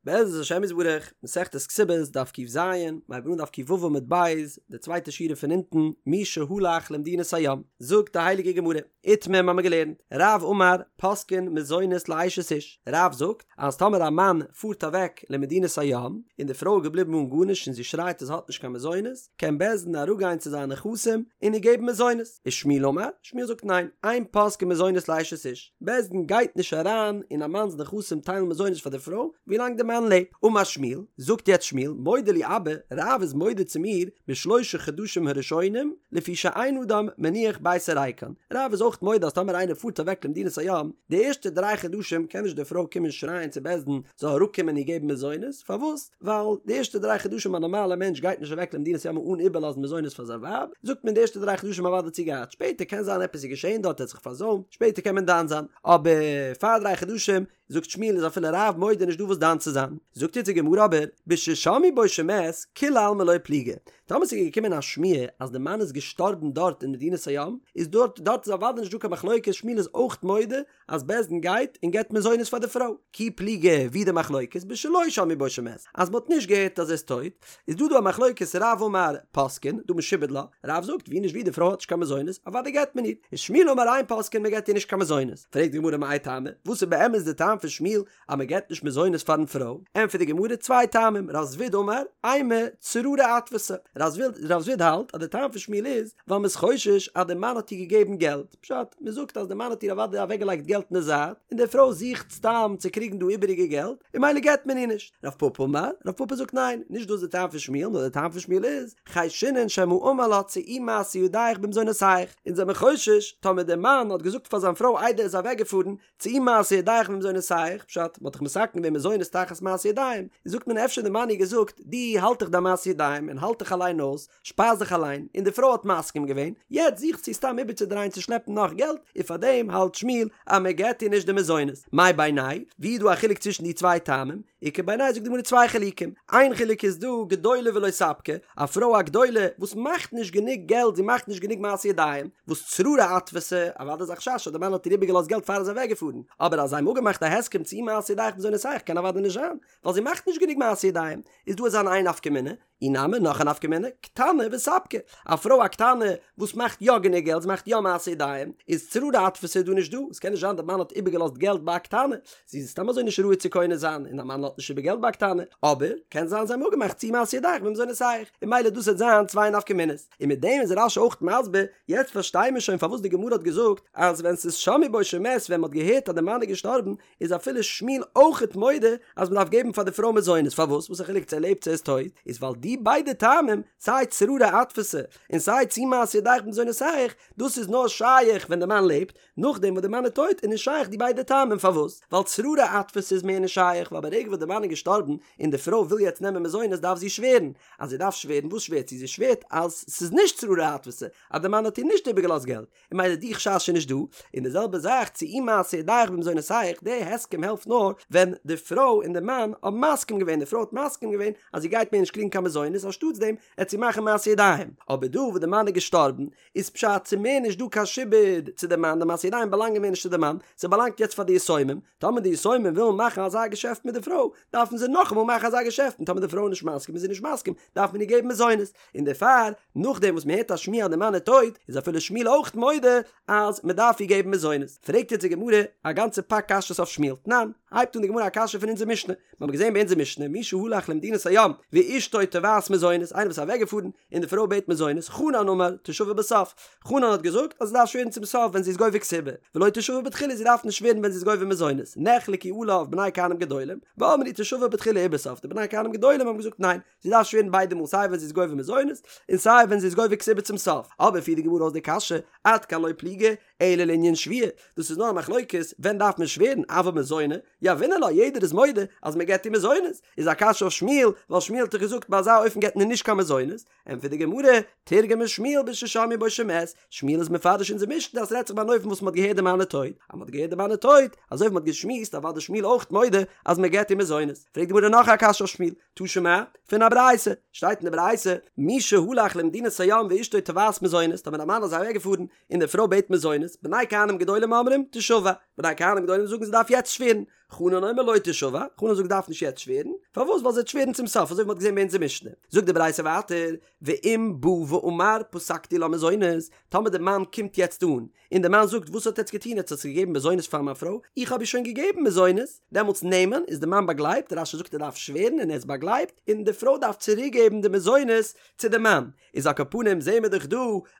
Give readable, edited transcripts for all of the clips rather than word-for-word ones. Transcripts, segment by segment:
בעזרת השם יתברך, מסכת כתובות, דף ק"ז, מ'הייבט אן דף ק"ו עמוד ב', די צווייטע שורה פון אונטן, מי שהלך למדינת הים, זאגט די הייליגע גמרא, איתמר מ'האמיר געלערנט, רב אמר, פוסקין מזונות לאשת איש, רב זאגט, אז טאמער א מאן פארט אוועק למדינת הים, און די פרוי איז געבליבן אן גארנישט און זי שרייט אז זי האט נישט קיין מזונות, קען בית דין אראפגיין צו זיינע נכסים און איר געבן מזונות. ושמואל אמר, שמואל זאגט ניין, אין פוסקין מזונות לאשת איש, בית דין גייט נישט אריין אין א מאנ'ס נכסים טיילן מזונות פאר די פרוי ווילאנג די מאן לעבט. אמר שמואל, זאגט יעצט שמואל, מודה לי אבא, רב איז מודה צו מיר בשלושה חדשים הראשונים, לפי שאין אדם מניח ביתו ריקן, רב איז אויך מודה אז טאמער איינער פארט אוועק למדינת הים, די ערשטע דריי חדשים קען נישט די פרוי קומען שרייען צו בית דין זאל אראפקומען איר געבן מזונות, פארוואס? ווייל די ערשטע דריי חדשים א נארמאלע מענטש גייט נישט אוועק למדינת הים אן איבערלאזן מזונות פאר זיין ווייב, זאגט מען די ערשטע דריי חדשים אוודאי האט זי געהאט, שפעטער קען זיין עפעס איז געשען דארט ער האט זיך פארזוימט, שפעטער קען מען דן זיין, אבער פאר דריי חדשים זאגט שמואל איז אפילו רב מודה נישט דא וואס דן צו זיין, זאגט יעצט די גמרא אבער בששמעו בו שמת כולי עלמא לא פליגי, טאמער ס'איז געקומען א שמועה אז די מאן איז געשטארבן דארט אין מדינת הים, איז דארט דארט איז אוודאי נישט דא קיין מחלוקת שמואל איז אויך מודה אז בית דין גייט און געבט מזונות פאר די פרוי. כי פליגי ווי די מחלוקת בשלא שמעו בו שמת אז מ'האט נישט געהערט אז ער איז טויט, איז דא דא א מחלוקת רב אמר פוסקין דהא משועבד לה, רב זאגט ווי נישט ווי די פרוי האט נישט קיין מזונות אוודאי געבט מען איר, ושמואל אמר אין פוסקין מ'געבט איר נישט קיין מזונות, פרעגט די גמרא מאי טעמא וואס איז באמת די טעם פון שמואל אז מ'געבט נישט מזונות פארן פרוי, ענטפערט די גמרא צוויי טעמים רב זביד אמר אימא צררי אתפסה, רב זביד האלט אז די טעם פון שמואל איז ווייל מ'איז חושש אז די מאן האט איר געגעבן געלט, פשט, מען זאגט אז די מאן האט איר אוודאי אוועקגעלייגט געלט אין די זייט, און די פרוי זוכט סתם צו קריגן דא איבעריגע געלט, און ממילא געבט מען איר נישט. רב פפא אמר, רב פפא זאגט ניין, נישט דאס איז די טעם פון שמואל, נאר די טעם פון שמואל איז, חיישינן שמא אמר לה צאי מעשה ידיך במזונותיך, אונז זעמיר חושש, טאמער די מאן האט געזאגט פאר זיין פרוי איידער ער איז אוועקגעפארן, צאי מעשה ידיך במזונותיך, פשט, מ'האט דאך מתקן געווען מזונות תחת מעשה ידיים, זאגט מען אפשר די מאן איר געזאגט, דו האלט דיך דיין מעשה ידיים און האלט דיך אליין אויס, שפייז דיך אליין, און די פרוי האט מסכים געווען, יעצט זוכט זי סתם איבערצודרייען צו שלעפן נאך געלט, און פארדעם האלט שמואל אז מען געט איר נישט די מזונות. מאי בינייהו ווי איז דא א חילוק צווישן די צוויי טעמים? איכא בינייהו זאגט די גמרא צוויי חילוקים, איין חילוק איז דא גדולה ולא ספקא, א פרוי א גדולה וואס מאכט נישט גענוג געלט זי מאכט נישט גענוג מעשה ידיים, וואס צררי אתפסה, אוודאי איז א חשש אז די מאן האט איר איבערגעלאזט געלט פאר ער איז אוועקגעפארן, אבער אז זיי האבן אפגעמאכט א הסכם צאי מעשה ידיך במזונותיך קען אוודאי נישט זיין, ווייל זי מאכט נישט גענוג מעשה ידיים, איז דא אזא איין נפקא מינה, אי נמי נאך א נפקא מינה, קטנה וספקא, א פרוי א קטנה וואס מאכט יא גענוג געלט, זי מאכט יא מעשה ידיים, איז צררי אתפסה איז דא נישט דא, עס קען נישט זיין די מאן האט איבערגעלאזט געלט ביי א קטנה, זי איז סתם אזוי נישט ראוי צו קונה זיין, און א מאן לאזט נישט איבער געלט ביי א קטנה, אבער קען זיין זיי האבן אפגעמאכט צאי מעשה ידיך במזונותיך, און ממילא דאס וועט זיין צוויי נפקא מינות, און מיט דעם איז רש"י אויך מסביר, יעצט פארשטיי מיר שוין פארוואס די גמרא האט געזאגט אז ווען ס'איז שמעו בו שמת ווען מ'האט געהערט אז די מאן איז געשטארבן איז אפילו שמואל אויכעט מודה אז מ'דארף געבן פאר די פרוי מזונות, פארוואס? וואס א חילוק צו ער לעבט צו ער איז טויט? איז ווייל די ביידע טעמים, סיי צררי אתפסה און סיי צאי מעשה ידיך במזונותיך, דאס איז נאר שייך ווען די מאן לעבט, נאכדעם וואס די מאן איז טויט איז נישט שייך די ביידע טעמים, פארוואס? ווייל צררי אתפסה איז מער נישט שייך, ווייל ברגע וואס די מאן איז געשטארבן און די פרוי וויל יעצט נעמען מזונות דארף זי שווערן, אז זי דארף שווערן וואס שווערט זי? זי שווערט אז ס'איז נישט צררי אתפסה, אז די מאן האט איר נישט איבערגעלאזט געלט, און ממילא די חשש איז נישט דא, און די זעלבע זאך צאי מעשה ידיך במזונותיך, די הסכם העלפט נאר ווען די פרוי און די מאן האבן מסכים געווען, די פרוי האט מסכים געווען אז זי גייט מער נישט קריגן קיין מזונות אנשטאטס דעם עט זי מאכן מעשה ידיים, אבער דא וואס די מאן איז געשטארבן איז פשט ס'איז מער נישט דא קיין שעבוד צו די מאן, די מעשה ידיים באלאנגען מער נישט צו די מאן, ס'באלאנגט יעצט פאר די יתומים, טאמער די יתומים ווילן מאכן אזא געשעפט מיט די פרוי דארפן זיי נאכאמאל מאכן אזא געשעפט און טאמער די פרוי איז נישט מסכים איז זי נישט מסכים דארף מען איר געבן מזונות, און דערפאר נאכדעם וואס מען הערט א שמועה אז די מאן איז טויט איז אפילו שמואל אויך מודה אז מען דארף איר געבן מזונות. פרעגט יעצט די גמרא א גאנצע פאק קשיות אויף שמואל, תנן, הייבט אן די גמרא א קשיא פון אונזער משנה, מיר האבן געזען ביי אונזער משנה מי שהלך למדינת הים ואשתו תובעת מזונות, איינער וואס איז אוועקגעפארן און די פרוי בעט מזונות, חנן אמר תשבע בסוף, חנן האט געזאגט אז זי דארף שווערן צום סוף ווען זי איז גובה כתובה, ולא תשבע בתחילה זי דארף נישט שווערן ווען זי איז גובה מזונות, נחלקו עליו בני כהנים גדולים, ואמרו תשבע בתחילה ובסוף, די בני כהנים גדולים האבן געזאגט ניין, זי דארף שווערן ביידע מאל סיי ווען זי איז גובה מזונות און סיי ווען זי איז גובה כתובה צום סוף, אבער פירט די גמרא אויס די קשיא, עד כאן לא פליגי, אלא לענין שבועה, דאס איז נאר א מחלוקת ווען דארף מען שווערן, אבל מזוני, יהבינן לה, יעדער איז מודה אז מען געבט איר מזונות, איז א קשיא אויף שמואל, ווייל שמואל האט דאך געזאגט ביי אזא אופן געבט מען נישט קיין מזונות, ענטפערט די גמרא, תרגמה שמואל בששמעו בו שמת, שמואל איז מפרש אונזער משנה אז ס'רעדט זיך ביי אן אופן וואס מ'האט געהערט די מאן איז טויט, אז מ'האט געהערט די מאן איז טויט, אזוי ווי מ'האט געשמועסט אוודאי שמואל אויך מודה אז מ'געבט איר מזונות, פרעגט די גמרא נאך א קשיא אויף שמואל, תא שמע, פון א ברייתא, שטייט אין די ברייתא, מי שהלך למדינת הים ואשתו תובעת מזונות, טאמער א מאן איז אוועקגעפארן און די פרוי בעט מזונות, בני כהנים גדולים אומרים, תשבע, בני כהנים גדולים זאגן זי דארף יעצט שווערן. חנן אומר לא תשבע, חנן זאגט דארף נישט יעצט שווערן, פארוואס ווייל זי וועט שווערן צום סוף אזוי ווי מ'האט געזען ביי אונזער משנה. זאגט די ברייתא ווייטער, ואם בא ואמר פסקתי לה מזונות, טאמער די מאן קומט יעצט אן, און די מאן זאגט וואס האט עטץ געטון עטץ האטס געגעבן מזונות פאר מיין פרוי, איך האב איר שוין געגעבן מזונות, דעמאלטס נאמן איז די מאן באגלייבט, רש"י זאגט ער דארף שווערן און ער איז באגלייבט, און די פרוי דארף צוריק געבן די מזונות צו די מאן, איז על כל פנים זעהן מיר דאך דא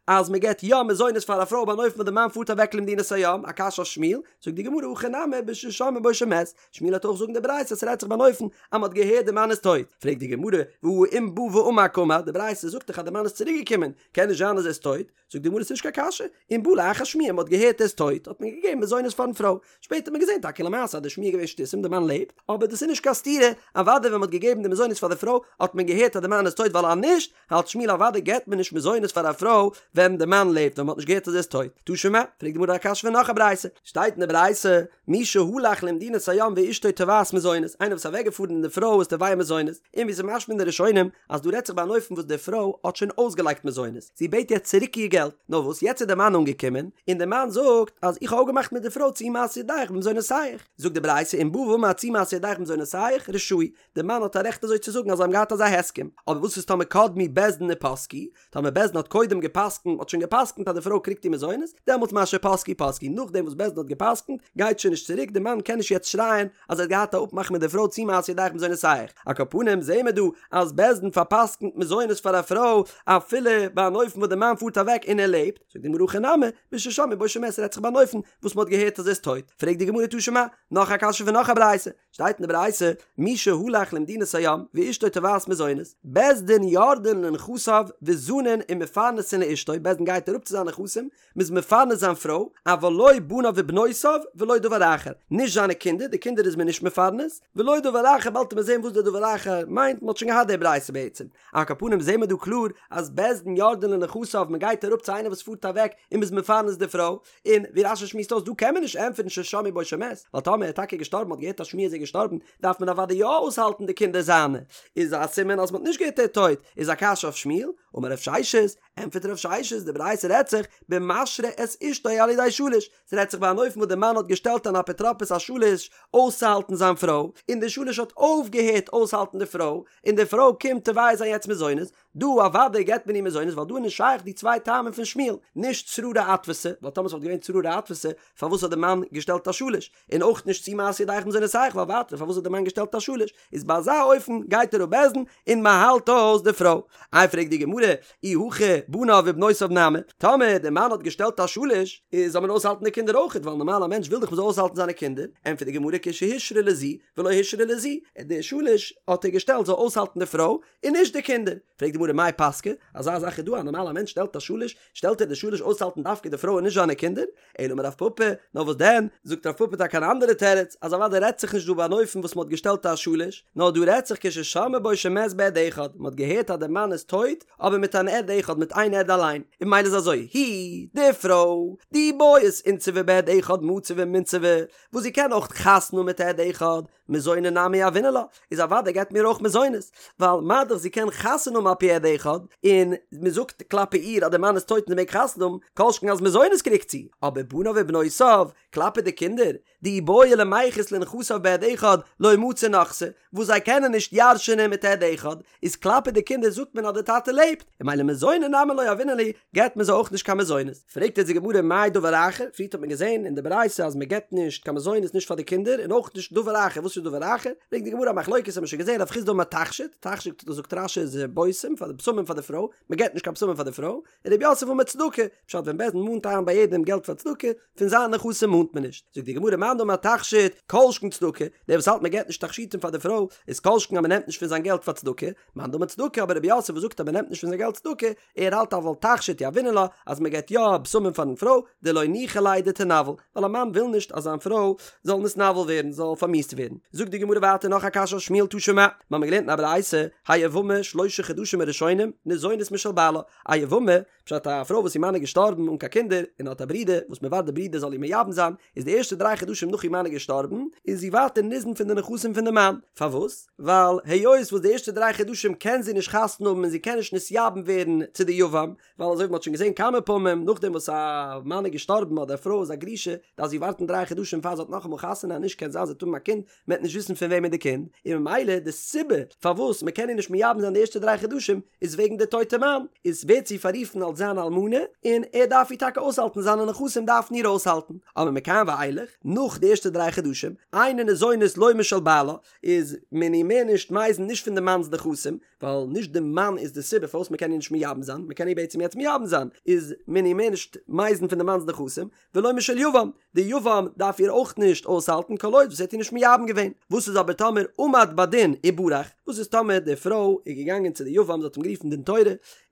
אז מען געבט יא מזונות פאר א פרוי ביי אן אופן וואס די מאן פארט אוועק למדינת הים, א קשיא אויף שמואל, זאגט די גמרא הכא נמי בששמעו בו שמת, שמואל וועט אויך זאגן די ברייתא אז ס'רעדט זיך ביי אן אופן אז מ'האט געהערט די מאן איז טויט, פרעגט די גמרא והא אם בא ואמר קאמר, די ברייתא זאגט דאך אז די מאן איז צוריק געקומען, קען נישט זיין אז ער איז טויט, זאגט די גמרא ס'נישט קיין קשיא, אם בא לאחר שמועה מ'האט געהערט ער איז טויט האט מען געגעבן מזונות פארן פרוי, שפעטער האט מען געזען טאקע למעשה אז די שמועה איז געווען שטותים די מאן לעבט, אבער דאס איז נישט קיין סתירה, אוודאי ווען מ'האט געגעבן די מזונות פאר די פרוי האט מען געהערט אז די מאן איז טויט ווייל אז נישט האלט שמואל אוודאי געבט מען נישט מזונות פאר א פרוי ווען די מאן לעבט ווען מ'האט נישט געהערט אז ער איז טויט. תא שמע, פרעגט די גמרא א קשיא פון נאך א ברייתא, שטייט אין די ברייתא, מי שהלך למדינת הים ואשתו תובעת מזונות, איינער וואס איז אוועקגעפארן און די פרוי איז תובע מזונות, און ווי ס'איז משמע אין די ראשונים אז דא רעדט זיך ביי אן אופן וואס די פרוי האט שוין אויסגעלייגט מזונות, זי בעט יעצט צוריק איר געלט, נאר וואס יעצט איז די מאן אנגעקומען, און די מאן זאגט אז איך האב אפגעמאכט מיט די פרוי צאי מעשה ידיך במזונותיך, זאגט די ברייתא אם בא ואמר צאי מעשה ידיך במזונותיך רשאי, די מאן האט א רעכט אזוי צו זאגן אז זיי האבן געהאט אזא הסכם, אבער וואס איז טאמער קדמו בית דין ופסקו, טאמער בית דין האט קודם געפסקנט, האט שוין געפסקנט אז די פרוי קריגט איר מזונות, דעמאלטס מה שפסקו פסקו, נאכדעם וואס בית דין האט געפסקנט, גייט שוין נישט צוריק, די מאן קען נישט יעצט שרייען אז ער האט געהאט א אפמאך מיט די פרוי צאי מעשה ידיך במזונותיך, על כל פנים זעהן מיר דא אז בית דין פארפסקנט מזונות פאר א פרוי אפילו ביי אן אופן וואס די מאן פארט אוועק און ער לעבט, זאגט די גמרא הכא נמי, בששמעו בו שמת רעדט זיך ביי אן אופן וואס מען האט געהערט אז ער איז טויט, פרעגט די גמרא תא שמע, נאך א קשיא פון נאך א ברייתא, שטייט אין די ברייתא, מי שהלך למדינת הים ואשתו תובעת מזונות, בית דין יורדין לנכסיו וזנין ומפרנסין לאשתו, בית דין גייט אראפ צו זיינע נכסים, מ'איז מפרנס זיין פרוי, אבל לא בניו ובנותיו ולא דבר אחר, נישט זיינע קינדער, די קינדער איז מען נישט מפרנס, ולא דבר אחר, באלד וועט מען זען וואס די דבר אחר מיינט, מ'האט שוין געהאט די ברייתא בעצם. על כל פנים זעהן מיר דא קלאר אז בית דין יורדין לנכסיו, מ'גייט אראפ צו איינער וואס פארט אוועק און מ'איז מפרנס די פרוי, און ווי רש"י שמועסט אויס דא קען מען נישט ענטפערן ששמעו בו שמת, ווייל טאמער ער איז טאקע געשטארבן מ'האט געהערט א שמועה אז ער איז געשטארבן דארף מען אוודאי יא אויסהאלטן די קינדער זיינע, איז א סימן אז מ'האט נישט געהערט ער איז טויט, איז א קשיא אויף שמואל, אמר רב ששת, ענטפערט רב ששת, די ברייתא רעדט זיך במשרה את אשתו על ידי שליש, ס'רעדט זיך ביי אן אופן וואס די מאן האט געשטעלט אן אפוטרופוס א שליש אויסצוהאלטן זיין פרוי, און די שליש האט אויפגעהערט אויסהאלטן די פרוי, און די פרוי קומט תובע זיין יעצט מזונות, דא אוודאי געבט מען איר מזונות ווייל דא איז נישט שייך די צוויי טעמים פון שמואל, נישט צררי אתפסה, ווייל טאמער ס'וואלט געווען צררי אתפסה פארוואס האט די מאן געשטעלט א שליש, און אויך נישט צאי מעשה ידיך במזונותיך ווייל ווייטער פארוואס האט די מאן געשטעלט א שליש, איז ביי אזא אופן גייט אראפ בית דין און מ'האלט אויס די פרוי. איי פרעגט די גמרא, אי הכי בניו ובנותיו נמי, טאמער די מאן האט געשטעלט א שליש, איז זאל מען אויסהאלטן די קינדער אויכעט ווייל נארמאל א מענטש וויל דאך מ'זאל אויסהאלטן זיינע קינדער, ענטפערט די גמרא כשהושרה לזו ולא הושרה לזו, די שליש האט ער געשטעלט זאל אויסהאלטן די פרוי, און נישט די קינדער. פרעגט די גמרא מאי פסקא, אזא זאך איז דא א נארמאלע מענטש שטעלט א שליש, שטעלט ער די שליש אויסהאלטן דווקא די פרוי און נישט זיינע קינדער? אלא אמר רב פפא, נאר וואס דען, זאגט רב פפא טאקע אן אנדערע תירוץ, אז אוודאי רעדט זיך נישט דא ביי אן אופן וואס מען האט געשטעלט א שליש, נאר דא רעדט זיך כששמעו בו שמת בעד אחד, מען האט געהערט אז דער מאן איז טויט, אבער מיט אן עד אחד, מיט איין עד אליין, און ממילא איז אזוי, היא, די פרוי, דאי בעית אינסובי בעד אחד מציא ומינסבא, וואס זי קען אויך חתונה האבן מיט עד אחד, מזוני נמי יהבינן לה, איז אוודאי געבט מען איר אויך מזונות, ווייל מה דאך זי קען חתונה האבן על פי עד אחד, און מען זאגט כלפי איר אז דער מאן איז טויט און זי מעג חתונה האבן, כל שכן אז מזונות קריגט זי, אבער בניו ובנותיו, כלפי די קינדער, דאי בעו למיחת לנכסיו בעד אחד, לא מצו נחתי, וואס זיי קענען נישט ירש'ענען מיט עד אחד, איז כלפי די קינדער זאגט מען אז דער טאטע לעבט, און ממילא מזוני נמי לא יהבינן להו, געבט מען זיי אויך נישט קיין מזונות. פרעגט יעצט די גמרא מאי דבר אחר, פריערט האט מען געזען אין די ברייתא אז מען געבט נישט קיין מזונות נישט פאר די קינדער און אויך נישט דבר אחר, וואס איז דבר אחר? ברענגט די גמרא א מחלוקת האט מען שוין געזען רב חסדא אמר תכשיט, תכשיט זאגט רש"י איז בושם פאר די בשמים פאר די פרוי, מען געבט נישט קיין בשמים פאר די פרוי, און רב יוסף אמר צדקה, פשט ווען בית דין מאנט איין ביי יעדעם געלט פאר צדקה, פון זיינע נכסים מאנט מען נישט. זאגט די גמרא מאן דאמר תכשיט, כל שכן צדקה, דער וואס האלט מען געבט נישט תכשיטים פאר די פרוי, איז כל שכן אז מען נעמט נישט פון זיין געלט פאר צדקה, מאן דאמר צדקה, אבער רב יוסף וואס זאגט אז מען נעמט נישט פון זיין געלט צדקה, ער האלט אבל תכשיט יהבינן לה, אז מען געבט יא בשמים פארן פרוי, דלא ניחא ליה דתנוול, ווייל א מאן וויל נישט אז זיין פרוי זאל נתנוול ווערן, זאל פארמיאוסט ווערן. זאגט די גמרא ווייטער נאך א קשיא אויף שמואל תא שמע, מיר האבן געלערנט אין א ברייתא, היבמה שלושה חדשים הראשונים ניזונת משל בעלה, א יבמה, פשט א פרוי וואס איר מאן איז געשטארבן אן קיין קינדער, און האט א ברודער, וואס מען ווארט די ברודער זאל איר מייבם זיין, איז די ערשטע דריי חדשים חדשים נאך איר מאן איז געשטארבן, איז זי ווייטער ניזון פון די נכסים פון די מאן, פארוואס? ווייל היות וואס די ערשטע דריי חדשים קען זי נישט חתונה האבן און זי קען נישט נתייבם ווערן צו די יבם, ווייל אזוי ווי מ'האט שוין געזען כמה פעמים, נאכדעם וואס א מאן איז געשטארבן אדער א פרוי איז א גרושה, דארף זי ווארטן דריי חדשים פאר זי האט נאכאמאל חתונה, אז נישט קען זיין זי וועט האבן א קינד, מ'וועט נישט וויסן פון וועמען איז די קינד, און ממילא די סיבה פארוואס מ'קען איר נישט מייבם זיין די ערשטע דריי חדשים איז וועגן די טויטע מאן, איז ווערט זי פאררופן אלס זיין אלמנה, און ער דארף איר טאקע אויסהאלטן, זיינע נכסים דארפן איר אויסהאלטן, אבער מכאן ואילך, נאך די ערשטע דריי חדשים, אינה ניזונת לא משל בעלה, איז מען איר מער נישט מזין נישט פון די מאנ'ס נכסים, ווייל נישט די מאן איז די סיבה פארוואס מ'קען איר נישט מייבם זיין, מ'קען איר בעצם יעצט מייבם זיין, איז מען איר מער נישט מזין פון די מאנ'ס נכסים, ולא משל יבם, די יבם דארף איר אויך נישט אויסהאלטן כל עוד וואס ער האט איר נישט מייבם געווען. וואס איז אבער טאמער עמד בדין וברח? וואס איז טאמער די פרוי איז געגאנגען צו די יבם, זי האט אים גערופן דין תורה,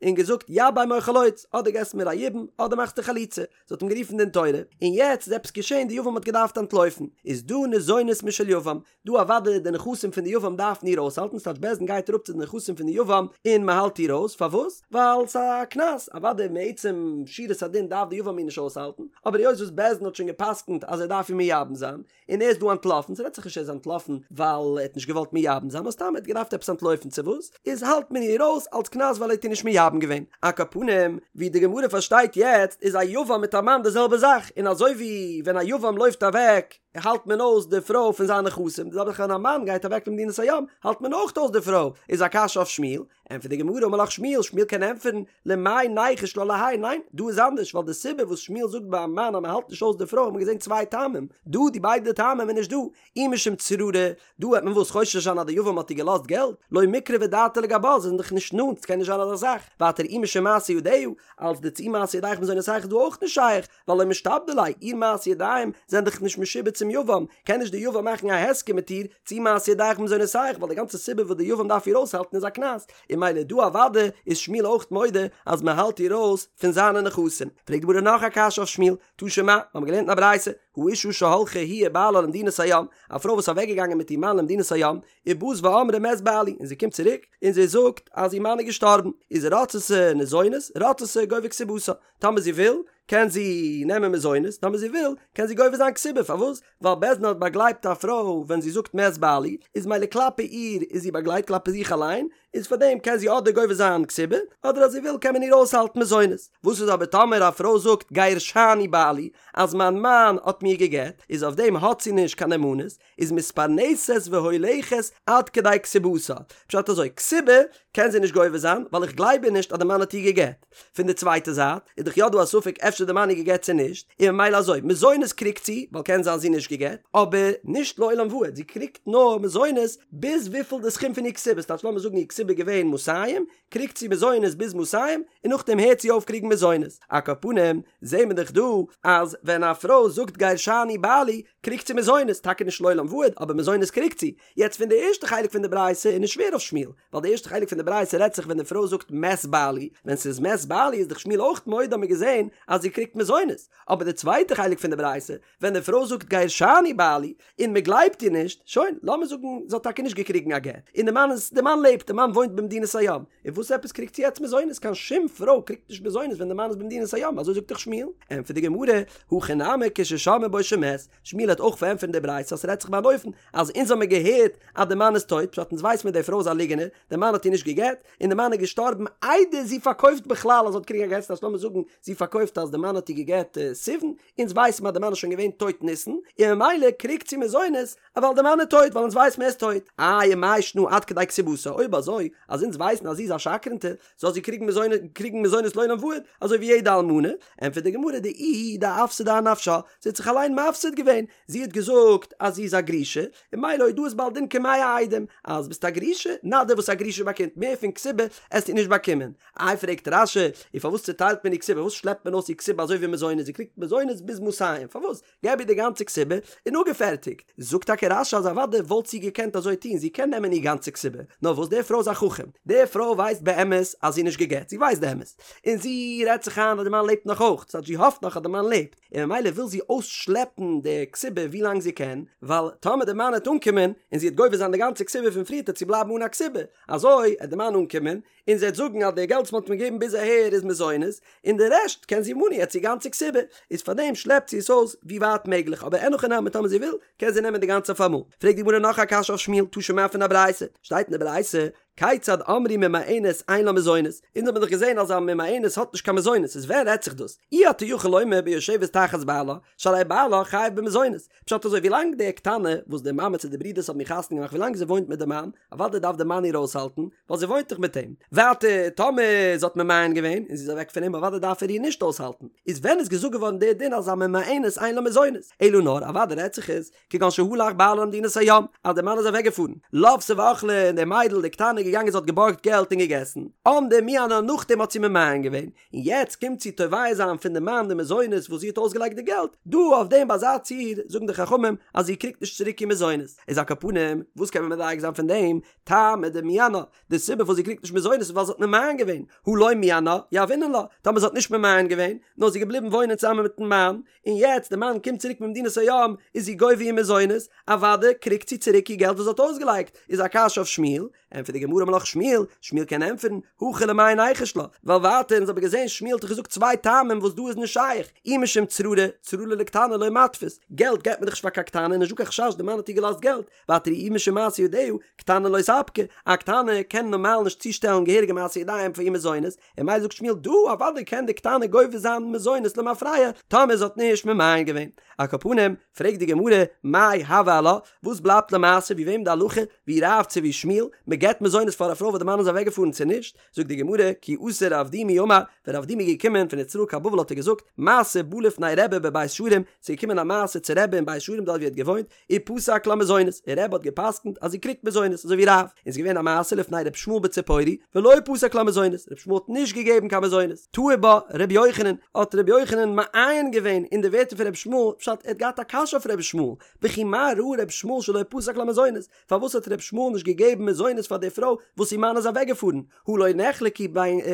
און געזאגט יבם או חלוץ, אדער געסט מיר א יבום אדער מאכסטו חליצה, זי האט אים גערופן דין תורה, און יעצט איז עפעס געשען די יבם האט געדארפט אנטלויפן, איז דא ניזונת משל יבם, דא אוודאי די נכסים פון די יבם דארפן איר אויסהאלטן, ס'טייטש בית דין גייט אראפ צו די נכסים פון די יבם און מ'האלט איר אויס, פארוואס? ווייל ס'איז א קנס, אוודאי מעצם שורת הדין דארף די יבם איר נישט אויסהאלטן, אבער היות וואס בית דין האט שוין גע'פסק'נט אז ער דארף איר מייבם זיין, און ער איז דא אנטלאפן, ס'רעדט זיך נישט ער איז אנטלאפן ווייל ער האט נישט געוואלט מייבם זיין, נאר סתם ער האט געדארפט עפעס אנטלויפן צו וואס, איז האלט מען איר אויס אלס קנס ווייל ער האט איר נישט מייבם געווען. על כל פנים, ווי די גמרא פארשטייט יעצט איז א יבם מיט א מאן די זעלבע זאך, און אזוי ווי ווען א יבם לויפט אוועק האלט מען אויס די פרוי פון זיינע נכסים, די זעלבע זאך ווען א מאן גייט אוועק למדינת הים האלט מען אויך אויס די פרוי, איז א קשיא אויף שמואל, ענטפערט די גמרא אמר לך שמואל, שמואל קען ענטפערן, למאי ניחוש לה להאי, ניין, דא איז אנדערש, ווייל די סיבה וואס שמואל זאגט ביי א מאן אז מען האלט נישט אויס די פרוי האט מען געזען צוויי טעמים, דא די ביידע טעמים איז נישט דא, אי משום צררי, דא וועט מען וואס חושש זיין אז די יבם האט איר געלאזט געלט, לא מיקרבא דעתה לגבה, זיי זענען דאך נישט נאנט, ס'קען נישט זיין אזא זאך, ווייטער אי משום מעשה ידיה, אלס די צאי מעשה ידיך מזונותיך איז דא אויך נישט שייך, ווייל לא משתעבדא ליה, איר מעשה ידיים זענען דאך נישט משועבד צום יבם, קען נישט די יבם מאכן א הסכם מיט איר צאי מעשה ידיך במזונותיך, ווייל די גאנצע סיבה וואס די יבם דארף איר אויסהאלטן איז א קנס, און ממילא דא אוודאי איז שמואל אויך מודה אז מען האלט איר אויס פון זיינע נכסים. פרעגט די גמרא נאך א קשיא אויף שמואל, תא שמע, מיר האבן געלערנט אין א ברייתא, האשה שהלכה היא ובעלה למדינת הים, א פרוי וואס איז אוועקגעגאנגען מיט איר מאן למדינת הים, ובאת ואמרה מת בעלי, און זי קומט צוריק און זי זאגט אז איר מאן איז געשטארבן, איז רצתה ניזונת, רצתה גובה כתובתה, טאמער זי וויל, קען זי נעמען מזונות, טאמער זי וויל, קען זי גובה זיין כתובה, פארוואס? ווייל בית דין האט באגלייבט א פרוי ווען זי זאגט מת בעלי, איז מילא כלפי איר איז זי באגלייבט כלפי זיך אליין, איז פאר דעם קען זי אדער גובה זיין כתובה, אדער אז זי וויל קען מען איר אויסהאלטן מזונות. וואס איז אבער טאמער א פרוי זאגט גירשני בעלי, אז מיין מאן האט מיר גע'גט, איז אויף דעם האט זי נישט קיין נאמנות, איז מתפרנסת והולכת עד כדי כתובתה. פשט אזוי, כתובה קען זי נישט גובה זיין, ווייל איך גלייב איר נישט אז די מאן האט איר גע'גט. פון די צווייטע זייט, איז דאך יא דא א ספק אפשר די מאן איר גע'גט צו נישט, און ממילא אזוי, מזונות קריגט זי, ווייל קען זיין זי נישט גע'גט, אבער נישט לעולם ועד, זי קריגט נאר מזונות ביז וויפיל די סכום פון איר כתובה, ס'טייטש לאמיר זאגן איר כתובה איז געווען מאתים, קריגט זי מזונות ביז מאתים, און נאכדעם הערט זי אויף קריגן מזונות. על כל פנים, זעהן מיר דאך דא, אז ווען א פרוי זאגט גירשני בעלי, קריגט זי מזונות, טאקע נישט לעולם ועד, אבער מזונות קריגט זי. יעצט פון די ערשטע חלק פון די ברייתא איז נישט שווער אויף שמואל, ווייל די ערשטע חלק פון די ברייתא רעדט זיך ווען די פרוי זאגט מת בעלי, ווען ס'איז מת בעלי איז דאך שמואל אויך מודה האט מען געזען אז זי קריגט מזונות, אבער די צווייטע חלק פון די ברייתא, ווען די פרוי זאגט גירשני בעלי, און מען גלייבט איר נישט, שוין, לאמיר זאגן זי האט טאקע נישט געקריגן א גט, און די מאן איז, די מאן לעבט, די מאן וואוינט במדינת הים, און וואס עפעס קריגט זי יעצט מזונות, קיין שום פרוי קריגט נישט מזונות ווען די מאן איז במדינת הים, אזוי זאגט דאך שמואל, ענטפערט די גמרא, הכא נמי כששמעו בו שמת, שמואל האט אויך פארענטפערט די ברייתא אז ס'רעדט זיך ביי אן אופן אז אונז האמיר געהערט אז די מאן איז טויט, פשט אונז ווייס מיר די פרוי איז א ליגענער, די מאן האט איר נישט גע'גט, און די מאן איז געשטארבן איידער זי פארקויפט בכלל אז זי האט געקריגן א גט, ס'טייטש לאמיר זאגן זי פארקויפט אז די מאן האט איר גע'גט סיוון, אונז ווייס מיר אז די מאן איז שוין געווען טויט ניסן, און ממילא קריגט זי מזונות ווייל די מאן איז טויט ווייל אונז ווייס מיר ער איז טויט. איי ומאי שנא עד כדי כתובתה, אויב אזוי אז אונז ווייסן אז זי איז א שקרנטע, זאל זי קריגן מזונות קריגן מזונות לעולם ועד, אזוי ווי יעדע אלמנה, ענטפערט די גמרא דאיהי דאפסידה אנפשה, זי האט זיך אליין מפסיד געווען, זי האט געזאגט אז זי איז א גרושה, און ממילא הודאת בעל דין כמאה עדים, אז ביסט א גרושה, נא דיר וואס א גרושה באקומט, מער פון כתובה עסטו נישט באקומען. איי פרעגט רש"י, און פארוואס צוטיילט מען איר כתובה, פארוואס שלעפט מען אויס איר כתובה אזוי ווי מזונות, זי קריגט מזונות ביז מאתים, פארוואס? געב איר די גאנצע כתובה און אפגעפערטיגט. זאגט טאקע רש"י אז אוודאי וואלט זי געקענט אזוי טון, זי קען נעמען איר גאנצע כתובה, נאר וואס די פרוי איז א חכם, די פרוי ווייסט באמת אז זי איז נישט גע'גט, זי ווייסט די אמת, און זי רעדט זיך איין אז די מאן לעבט נאך אויך, ס'הייסט זי האפט נאך אז די מאן לעבט, און ממילא וויל זי אויסשלעפן די כתובה ווי לאנג זי קען, ווייל טאמער די מאן העט אנקומען און זי העט גובה זיין די גאנצע כתובה פון פריערט העט זי בלייבן אן א כתובה, אזוי העט די מאן אנקומען און זי העט זאגן אז די געלט וואס מ'האט מיר געגעבן ביז אהער איז מזונות, און די רעשט קען זי ממה. אלמנה יעצט איר גאנצע כתובה, איז פארדעם שלעפט זי עס אויס ווי ווייט מעגליך, אבער אין הכי נמי טאמער זי וויל קען זי נעמען די גאנצע אויפאמאל. פרעגט די גמרא נאך א קשיא אויף שמואל, תא שמע פון א ברייתא, שטייט אין די ברייתא, כיצד אמרו ממאנת אין לה מזונות, אונז האבן דאך געזען אז א ממאנת האט נישט קיין מזונות, איז ווען רעדט זיך דאס? אי אתה יכול לומר ביושבת תחת בעלה, שהרי בעלה חייב במזונות, פשט אזוי ווילאנג די קטנה וואס די מאמע צו די ברודערס האבן איר חתונה געמאכט ווילאנג זי וואוינט מיט די מאן, אוודאי דארף די מאן איר אויסהאלטן, ווייל זי וואוינט דאך מיט אים. ווייטער טאמער זי האט ממאן געווען און זי איז אוועק פון אים אוודאי דארף ער איר נישט אויסהאלטן, איז ווען איז געזאגט געווארן די דין אז א ממאנת אין לה מזונות? אלא נאר אוודאי רעדט זיך עס כגון שהלך בעלה למדינת הים, אז דער מאן איז אוועק געפארן, לותה ואכלה, און די מיידל די קטנה איז געגאנגען זי האט געבארגט געלט און געגעסן, עמדה ומיאנה נאכדעם האט זי ממאן געווען, און יעצט קומט זי תובע זיין פון די מאן די מזונות וואס זי האט אויסגעלייגט די געלט, דא אויף דעם ביי אזא ציור זאגן די חכמים אז זי קריגט נישט צוריק איר מזונות, איז על כל פנים וואס קען מען מדייק זיין פון דעם, טעמא דמיאנה, די סיבה פארוואס זי קריגט נישט מזונות איז ווייל זי האט ממאן געווען, הא לא מיאנה, יהבינן לה, טאמער זי האט נישט ממאן געווען, נאר זי איז געבליבן וואוינען צוזאמען מיטן מאן, און יעצט די מאן קומט צוריק ממדינת הים איז זי גובה איר מזונות, אוודאי קריגט זי צוריק איר געלט וואס זי האט אויסגעלייגט, איז א קשיא אויף שמואל, ענטפערט די גמרא אמר לך שמואל, שמואל קען ענטפערן, הכא למאי ניחוש לה, ווייל ווייטער אונז האבן געזען שמואל האט דאך געזאגט צוויי טעמים וואס דא איז נישט שייך, אי משום צררי, צררי לקטנה לא מתפיס, געלט געבט מען דאך נישט פאר קיין קטנה, נישט דא קיין חשש די מאן האט איר געלאזט געלט, ווייטער אי משום מעשה ידיה, קטנה לא ספקא, א קטנה קען נארמאל נישט צושטעלן געהעריגע מעשה ידיים פאר איר מזונות, און ממילא זאגט שמואל דא אוודאי קען די קטנה גובה זיין מזונות למפרע טאמער זי האט נישט ממאן געווען. על כל פנים, פרעגט די גמרא, מאי הוי עלה, וואס בלייבט למעשה ווי וועם די הלכה, ווי רב צו ווי שמואל, מען געבט מזונות פאר א פרוי וואס די מאן איז אוועק געפארן צו נישט? זאגט די גמרא, כי אתא רב דימי אמר, ווען רב דימי איז געקומען פון ארץ ישראל קיין בבל האט ער געזאגט, מעשה בא לפני רבי בבית שערים, ס'איז געקומען א מעשה צו רבי אין בית שערים דארט ווי ער האט געוואוינט, ופסק לה מזונות, און רבי האט געפסקנט אז זי קריגט מזונות, אזוי ווי רב, און ס'איז געווען א מעשה לפני ר' ישמעאל בציפורי, ולא פסק לה מזונות, ר' ישמעאל האט נישט געגעבן קיין מזונות, תהי בה ר' יוחנן, האט ר' יוחנן מעיין געווען אין די ווערטער פון ר' ישמעאל, פשט ער האט געהאט א קשיא אויף ר' ישמעאל, וכי מה ראה ר' ישמעאל שלא פסק לה מזונות, פארוואס האט ר' ישמעאל נישט געגעבן מזונות פאר די פרוי וואס איר מאן איז אוועקגעפארן, הא לא נחלקו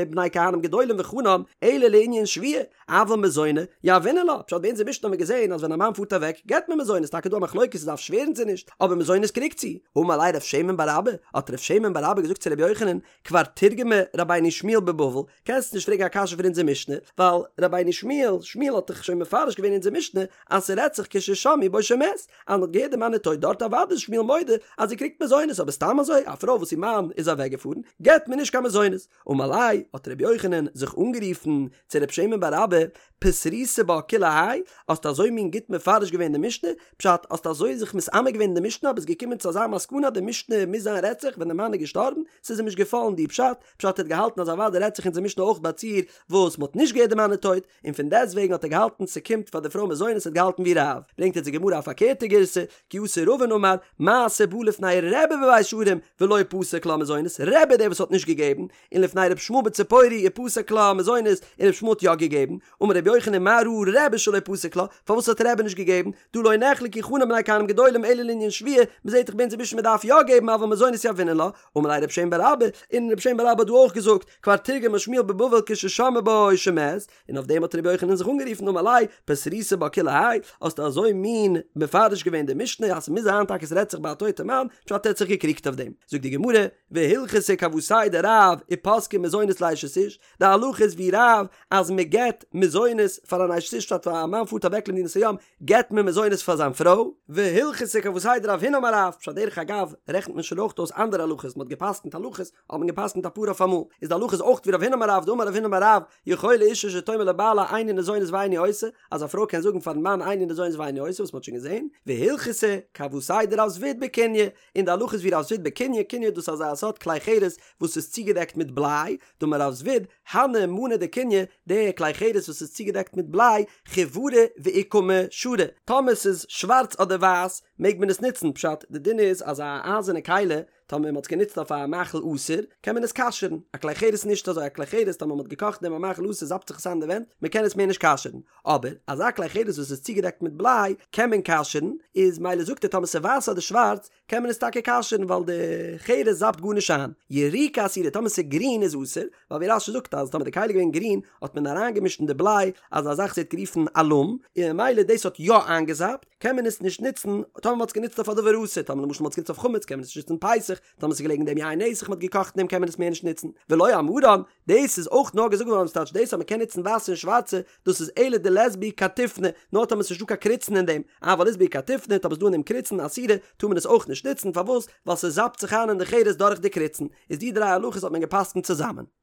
בני כהנים גדולים וחנן אלא לענין שבועה, אבל מזוני יהבינן לה, פשט ביי אונזער משנה האט מען געזען אז ווען א מאן פארט אוועק געבט מען מזונות, טאקע דא א מחלוקת צו דארף שווערן צו נישט, אבער מזונות קריגט זי. אמר ליה רב שמן בר אבא, האט רב שמן בר אבא געזאגט צו רבי יוחנן, כבר תרגמה רבינו שמואל בבבל, קענסט נישט פרעגן א קשיא פון אונזער משנה, ווייל רבינו שמואל, שמואל האט דאך שוין מפרש געווען אונזער משנה אז ס'רעדט זיך כששמעו בו שמת, אז מ'האט געהערט די מאן איז טויט דארט אוודאי איז שמואל מודה אז זי קריגט מזונות אבער סתם אזוי א פרוי וואס איר מאן איז אוועקגעפארן געבט מען נישט קיין מזונות. אמר ליה, האט רבי יוחנן זיך אנגערופן צו רב שמן בר אבא, פתריתו בה כולי האי, האסט אזוי מין גוט מפרש געווען די משנה, פשט, האסט אזוי זיך מתעמק געווען אין די משנה אז ביסט געקומען צו אזא מסקנא אז די משנה מוז זיין רעדט זיך ווען די מאן איז געשטארבן, ס'איז אים נישט געפאלן די פשט, פשט ער האט געהאלטן אז אוודאי רעדט זיך אונזער משנה אויך ביי א ציור וואס מ'האט נישט געהערט די מאן איז טויט, און פון דעסט וועגן האט ער געהאלטן ס'קומט פאר די פרוי מזונות ער האט געהאלטן ווי רב, ברענגט אונז די גמרא א פארקערטע גירסא, כי אתא רבין אמר, מעשה בא לפני רבי בבית שערים ולא פסק לה מזונות, רבי דער וואס האט נישט געגעבן, און לפני ר' ישמעאל בציפורי ופסק לה מזונות, און ר' ישמעאל האט יא געגעבן, אמר רבי יוחנן מה ראה רבי שלא פסק לה, פארוואס האט רבי נישט געגעבן, דהא לא נחלקו חנן בני כהנים גדולים אלא לענין שבועה, מ'זעט דאך ביי אונזער משנה מ'דארף יא געבן אבל מזונות יהבינן לה, אמר ליה רב שמן בר אבא, און רב שמן בר אבא האט דא אויך געזאגט, כבר תרגמה שמואל בבבל כששמעו בו שמת, און אויף דעם האט רבי יוחנן זיך אנגערופן אמר ליה, פתריתו בה כולי האי, האסטו אזוי מין מפרש געווען די משנה אז ס'מוז זיין טאקע ס'רעדט זיך ביי א טויטע מאן, פשט ער האט זיך געקריגט אויף דעם. זאגט די גמרא, והלכתא כוותיה דרב ופסקי מזונות לאשת איש, די הלכה איז ווי רב אז מ'געט מזונות פאר אן אשת איש פשט א מאן פארט אוועק למדינת הים געט מען מזונות פאר זיין פרוי, והלכתא כוותיה דרב הונא אמר רב, פשט דרך אגב רעכנט מען שוין אויך אויס אנדערע הלכות, מ'האט געפסקנט הלכות האט מען געפסקנט אפאר אויף אמאל, איז די הלכה איז אויך ווי רב הונא אמר רב, דאמר רב הונא אמר רב, יכולה אישה שתאמר לבעלה איני ניזונית ואיני עושה, אז א פרוי קען זאגן פארן מאן איני ניזונית ואיני עושה וואס מ'האט שוין געזען, והלכתא כוותיה דרב זביד בקוניא, און די הלכה איז ווי רב זביד בקוניא, קוניא דאס איז אזא סארט כלי חרס וואס איז צוגעדעקט מיט בליי, דאמר רב זביד, הני מאני דקוניא, די כלי חרס וואס איז צוגעדעקט מיט בליי, חיורא ואוכמא שרי, טאמער ס'איז שווארץ אדער ווייס מעג מען עס נוצן, פשט, די דין איז אז א אייזערנע כלי טאמער מ'האט עס גענוצט אויף א מאכל אסור, קען מען עס כשר'ן, א כלי חרס נישט אזוי, א כלי חרס טאמער מ'האט געקאכט אין דעם א מאכל אסור זאפט זיך עס איין אין די ווענט, מ'קען עס מער נישט כשר'ן, אבער אזא כלי חרס וואס איז צוגעדעקט מיט בליי קען מען כשר'ן, איז מילא זאגט ער טאמער ס'איז ווייס אדער שווארץ קען מען עס טאקע כשר'ן ווייל די חרס זאפט גארנישט איין, יריקא אסירא טאמער ס'איז גרין איז אסור, ווייל ווי רש"י זאגט אז טאמער די כלי איז געווען גרין האט מען אריינגעמישט אין די בליי אזא זאך וואס ווערט גערופן אלום, און ממילא דאס האט יא איינגעזאפט. קען מען עס נישט נוצן טאמער מ'האט עס גענוצט אויף א דבר אסור, טאמער למשל מ'האט עס גענוצט אויף חמץ קען מען עס נישט נוצן פסח, טאמער ס'איז געלעגן אין דעם יין נסך מ'האט געקאכט אין דעם קען מען עס מער נישט נוצן, ולא אמרן, דאס איז אויך נאר געזאגט געווארן ס'טייטש דאס אז מ'קען נוצן ווייסע און שווארצע, דאס איז אלא דלית בהו קרטופני, נאר טאמער ס'איז נישטא קיין קריצן אין דעם, אבל אית בהו קרטופני, טאמער ס'איז דא אין דעם קריצן, אסירא, טאר מען עס אויך נישט נוצן, פארוואס? ווייל ס'זאפט זיך איין אין די חרס דורך די קריצן, איז די דריי הלכות האט מען גע'פסק'נט צוזאמען.